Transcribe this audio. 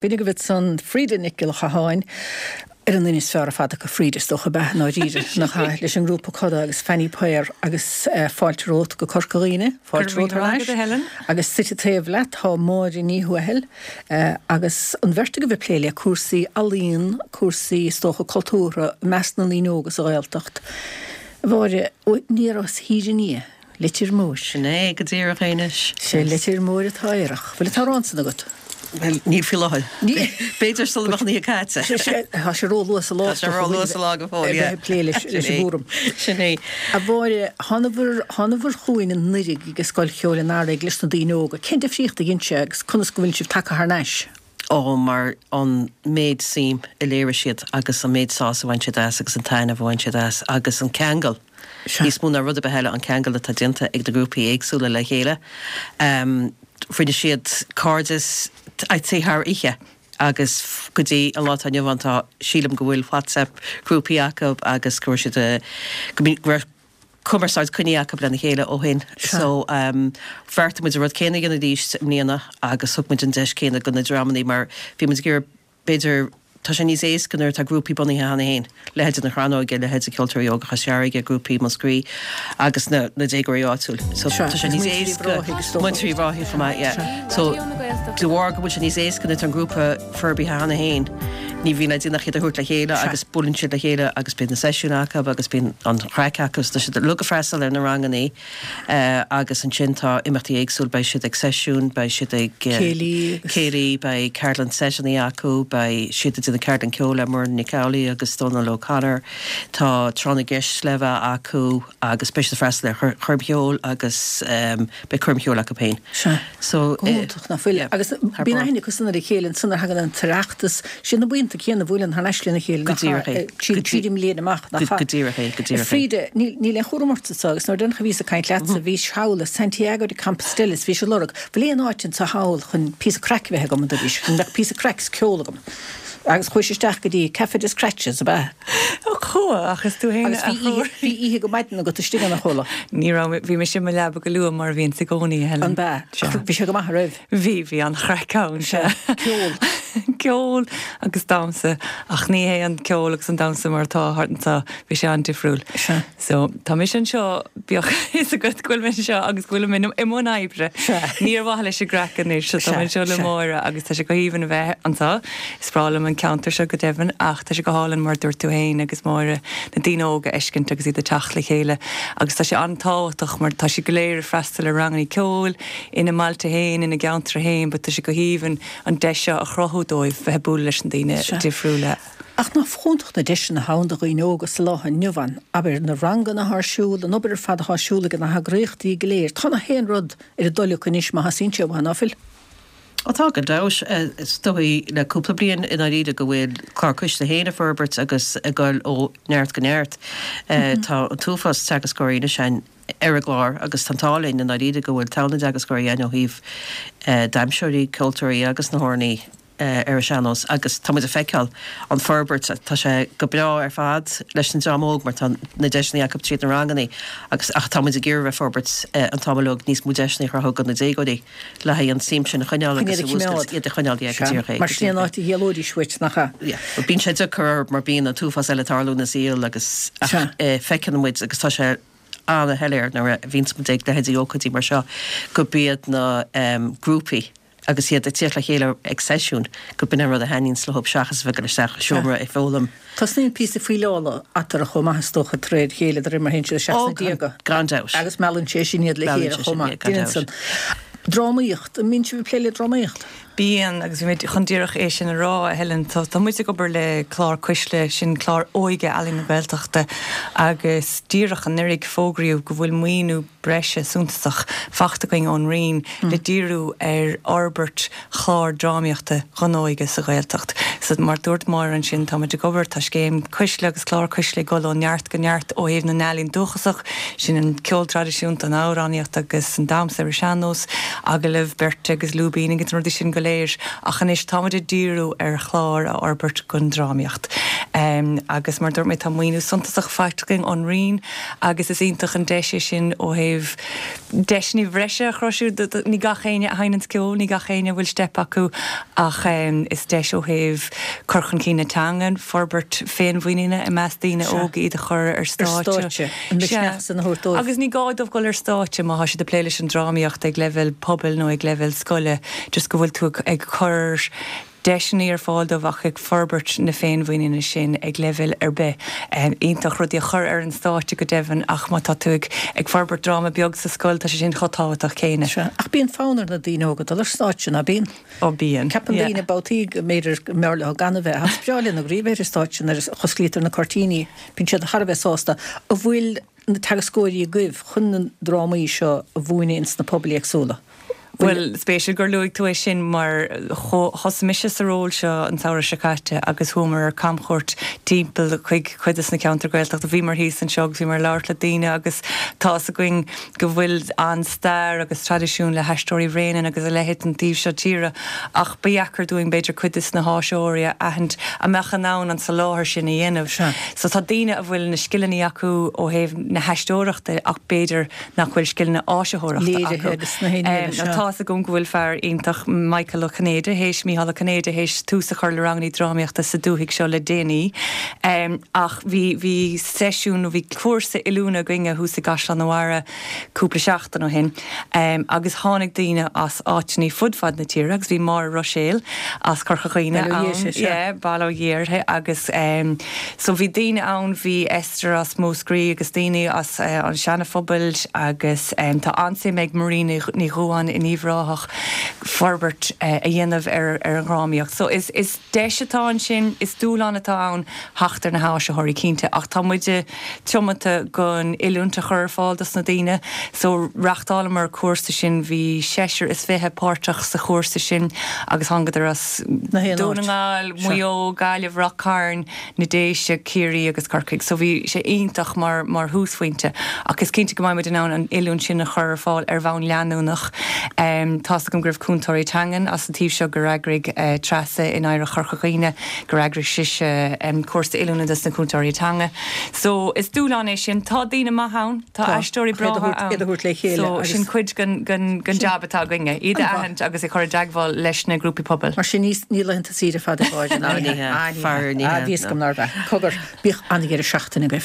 B'in agaibh ansan Frida Nic Giolla Chatháin, ar an duine is fearr ar fad acu Frida, is dócha, ab ea, i ndáiríre, nach ea, leis an ngrúpa Coda agus Fanny Paor agus fáilte romhat go Corca Dhuibhne, fáilte romhat thar n-ais, agus suite taobh leat tá Máire Ní Thuathail agus an bheirt agaibh ag plé le cúrsaí ealaíon, cúrsaí, is dócha, cultúrtha i measc na ndaoine óga sa Ghaeltacht. A Mháire, aniar as Thír an Fhia. Leitir Móir. Sin é go díreach é anois. Sé Leitir Móir atá aerach. Bhfuil an t-amhrán san agat? Bhuel, níl faoi láthair. B'fhéidir sula mbeadh an oíche caite. Tá sé ró-luath sa lá. Tá sé ró-luath sa lá go fóill, yeah. A bheith ag plé leis an gcúram. Sin é. A Mháire, thánabhair, thánabhair chugainn anuraidh ag Scoil Cheoil an Earraigh leis na daoine óga. Cén difríocht a dhein sé agus conas go bhfuil sibh tagtha thar n-ais? Ó, mar an méid suim a léirigh siad agus an méid sásamh a bhain siad as agus an taitneamh a bhain siad as agus an ceangal, níos mó ná rud ar bith eile, an ceangal atá déanta ag na grúpaí éagsúla le chéile. Rinne siad cairdeas, I'd say thar oíche agus go dtí an lá atá inniu ann tá, sílim go bhfuil WhatsApp grúpaí acu agus go raibh siad, go raibh cumarsáid coinnithe acu lena chéile ó shin. So bheartaigh muid an rud céanna a dhéanamh arís i mbliana agus thug muid an deis céanna do na dreamannaí mar bhí muid ag iarraidh b'fhéidir tá sé níos éasca nuair atá grúpaí bunaithe cheana féin, leithéide na Crannóige, leithéide Ceoltóirí Óga Chois Fharraige, grúpaí Mhúscraí agus na na déagóirí áitiúil. So tá sé níos éasca Múinteoirí Uíbh Ráthaigh chomh maith, yeah. So de bharr go bhfuil sé níos éasca nuair atá an grúpa forbartha cheana féin, ní bhíonn le déanamh ach iad a thabhairt le chéile agus buaileann siad le chéile agus bíonn na seisiúin acu agus bíonn an chraic acu so tá siad uilig ag freastal ar na rangannaí agus ansin tá imeachtaí éagsúil, beidh siad ag seisiúin, beidh siad ag céilí, céilí, beidh ceardlann seiteannaí acu, beidh siad ag déanamh ceardlann ceoil le Muireann Nic Amhlaoibh agus Dónal O'Connor, tá tráth na gceist le bheith acu agus beidh siad ag freastal ar choirm cheoil agus beidh coirm cheoil acu féin. Sea. So, Go hiontach, nach bhfuil? Agus bíonn aithne acu san ar a chéile ansan nuair a thagann an tOireachtas, siad na buíonta céanna a bhuaileann thar n-ais lena chéile, Go díreach é. Tríd tríd an mbliain amach, nach ea? Go díreach é, go díreach é. Frida, níl níl aon chúram ort anso agus nuair deireanach a bhíos ag caint leatsa, bhís thall i Santiago de Compostela is bhís ag lorg, bhfuil aon áit anso thall chun píosa craic a bheith agam, a dúraís, go mbeadh píosa craic is ceol agam. Agus chuais isteach go dtí Café des Scratches, ab ea? Chuaigh, ach is tú fhéin a chuaigh. Bhí oíche go maidin agat istigh ann, a chuala. Ní raibh, bhí mise i mo leaba go luath mar a bhíonns i gcónaí, a Helen. An ea? Bhí sé go maith, an raibh? Bhí, bhí an-chraic ann, sea. Ceol. Ceol agus damhsa, ach ní hé an ceol agus an damhsa mar atá thart anseo, bhí sé an-difriúil. Sea. So, tá mise anseo, bíodh a fhios agat go bhfuil mé anseo agus go bhfuilim i mbun oibre. Sea. Ní ar mhaithe leis an gcraic anois, so tá mé anseo le Sea. Máire agus tá sé go haoibhinn a bheith anseo. Is breá liom an ceantar seo go deimhin ach tá sé go hálainn mar a dúirt tú féin agus Máire, na daoine óga a fheiscint agus iad ag teacht le chéile agus tá sé an-tábhachtach mar tá siad go léir ag freastal ar rangannaí ceoil ina mbailte féin, ina gceantair féin but tá sé go haoibhinn an deis seo a chruthú dóibh bheith ag bualadh leis na daoine difriúla. Ach nach iontach na deiseanna atá ann do dhaoine óga sa lá inniu ann, abair, na ranganna atá ar siúl, an obair ar fad atá ar siúl ag na heagraíochtaí go léir. Tá na haon rud ar a dtoil acu anois má theastaíonn sé uathu, ná fuil? Ó tá, gan dabht. Is dóigh le cúpla bliain i ndáiríre go bhfuil Clár Cuisle féin ag forbairt agus ag dul ó neart go neart. Tá an t-uafás teagascóirí anois ann ar an gclár agus tá an t-ádh linn i ndáiríre go bhfuil togha na dteagascóirí ann ó thaobh damhsóirí, ceoltóirí agus na hamhránaí. ar an sean-nós agus tá muid ag feiceáil an forbairt, tá sé go breá ar fad leis an dream óg mar tá na deiseanna acu tríd na ranganna agus ach tá muid ag iarraidh a bheith ag forbairt an t-am uilig níos mó deiseanna a chruthú do na déagóirí le haghaidh an tsuim sin a choinneáil agus a mhúscailt, iad a choinneáil, yeah, go díreach é, Mar sin an áit a d'éalóidís uait, nach ea? Yeah, bhuel bíonn sé deacair orthu mar bíonn an t-uafás eile ag tarlú ina saol agus ach feiceann muid agus tá sé an-shoiléir nuair a bhíonns muid ag leithéidí ócáidí mar seo go b'iad na grúpaí agus iad ag tíocht le chéile ag seisiún, go b'in an rud a thaitníonns leo seachas a bheith ag dul isteach i seomra ag foghlaim. Tosnaíonn píosa fuíleála eatarthu chomh maith is dócha de réir a chéile de réir mar a théann siad isteach sna déaga. Gan dabht. Agus meallann sé sin iad le chéile chomh maith. Gan dabht. Drámaíocht, an mbíonn sibh ag plé le drámaíocht? Bíonn, agus bhí mé chun díreach é sin a rá, a Helen. Tá muid ag obair le Clár Cuisle, sin clár óige Ealaín na Gaeltachta, agus díreach anuraidh fógraíodh go bhfuil maoiniú breise suntasach faighte againn ón Roinn le díriú ar fhorbairt chlár drámaíochta don óige sa Ghaeltacht. So, mar dúirt Máire ansin, tá muid ag obair, tá scéim Cuisle agus clár Cuisle ag dul ó neart go neart ó thaobh na n-ealaíon dúchasach, sin an ceol traidisiúnta, an amhránaíocht agus an damhsa ar an sean-nós, agallaimh beirte agus lúibíní agus na rudaí sin go léir. Ach anois tá muid ag díriú ar chlár a fhorbairt don drámaíocht. Agus mar a dúirt mé, tá maoiniú suntasach faighte againn ón Roinn agus is iontach an deis é sin ó thaobh deiseanna bhreise a chruthú. Ní gach éinne a sheinneanns ceol, ní gach éinne a bhfuil steip acu ach is deis ó thaobh cur chun cinn na teangan, forbairt féinmhuiníne i measc daoine óga, iad a chur ar stáitse. An misneach san a thabhairt dóibh. Agus ní gá dóibh dul ar stáitse má tá siad ag plé leis an drámaíocht ag leibhéal pobail nó ag leibhéal scoile, just go bhfuil tú ag cur deiseanna ar fáil dóibh ach ag forbairt na féinmhuiníne sin ag leibhéal ar bith. Iontach rudaí a chur ar an stáitse go deimhin ach má tá tú ag ag forbairt dráma beag sa scoil tá sé sin chomh tábhachtach céanna. Sea, ach bíonn fonn ar na daoine óga dul ar stáitse, ná bíonn? Ó bíonn, Ceapann daoine babhtaí go mb'fhéidir go mb'fhearr leo gan a bheith ach is breá leo i ndáiríre bheith ar an stáitse nuair a osclaítear na cuirtíní, bíonn siad thar a bheith sásta. An bhfuil na teagascóirí agaibh chun na drámaí seo a mhúineadh ins na pobail éagsúla? Bhuel, spéisiúil gur luaigh tú é sin mar thosaigh mise sa ról seo an samhradh seo caite agus chuamar ar camchuairt timpeall chuig cuid de na ceantair Gaeltachta. Bhíomar thíos anseo agus bhíomar ag labhairt le daoine agus tá's againn go bhfuil an-stair agus traidisiún le hAisteoirí Bhréanainn agus a leithéid an taobh seo tíre ach ba dheacair dúinn b'fhéidir cuid de na háisitheoirí a aithint a mbeadh in ann an soláthar sin a dhéanamh. So tá daoine a bhfuil na scileanna acu ó thaobh na haisteoireachta ach b'fhéidir nach bhfuil scileanna áisitheoireachta acu. Tá's agam go bhfuil fear iontach, Michael Ó Cinnéide, théis, Mícheál Ó Cinnéide, théis tús a chur le rangannaí drámaíochta sa dúthaigh seo le déanaí. Ach bhí, bhí seisiún nó bhí cúrsa oiliúna againne thuas i gCaisleán an Bharraigh cúpla seachtain ó shin agus tháinig daoine as áiteannaí fud fad na tíre agus bhí Máire Ruiséal as Corca Dhuibhne ann, yeah, bail ó Dhia uirthi agus so bhí daoine ann, bhí Esther as Múscraí agus daoine as an Seana-Phobal agus tá an-suim ag Marie Ní Dhubháin in Uíbh Ráthach forbairt a dhéanamh ar an dhrámaíocht. So is deis atá ansin, is dúshlán atá ann theacht ar na háisitheoirí cinnte ach tá muide tiomanta gon oiliúint a chur ar fáil dos na daoine. So reachtálamar cúrsa sin, bhí seisear is fiche páirteach sa chúrsa sin agus thángadar as Dún na nGall, Maigh Eo, Gaillimh, Ráth Cairn, na Déise, Ciarraí agus Corcaigh. So bhí sé iontach mar mar thúsphointe ach is cinnte go mbeidh muid in ann an oiliúint sin a chur ar fáil ar bhonn leanúnach. Tá's agam go raibh cúntóirí teangan as an taobh seo gur eagraigh Treasa in Oidhreacht Chorca Dhuibhne gur eagraigh sise cúrsa oiliúna dos na cúntóirí teanga. So is dúshlán é sin. Tá daoine maithe ann. Tá aisteoirí breátha ann. Iad a thabhairt le chéile So sin cuid den jab atá againne, iad a aithint agus a chur i dteagmháil leis na grúpaí pobail. Mar sin ní laethanta saoire fada gáire ná ní hea. Faraor ní hea. Bhí fhios agam nárbh ea. Cogar, bíodh an-dheireadh seachtaine agaibh.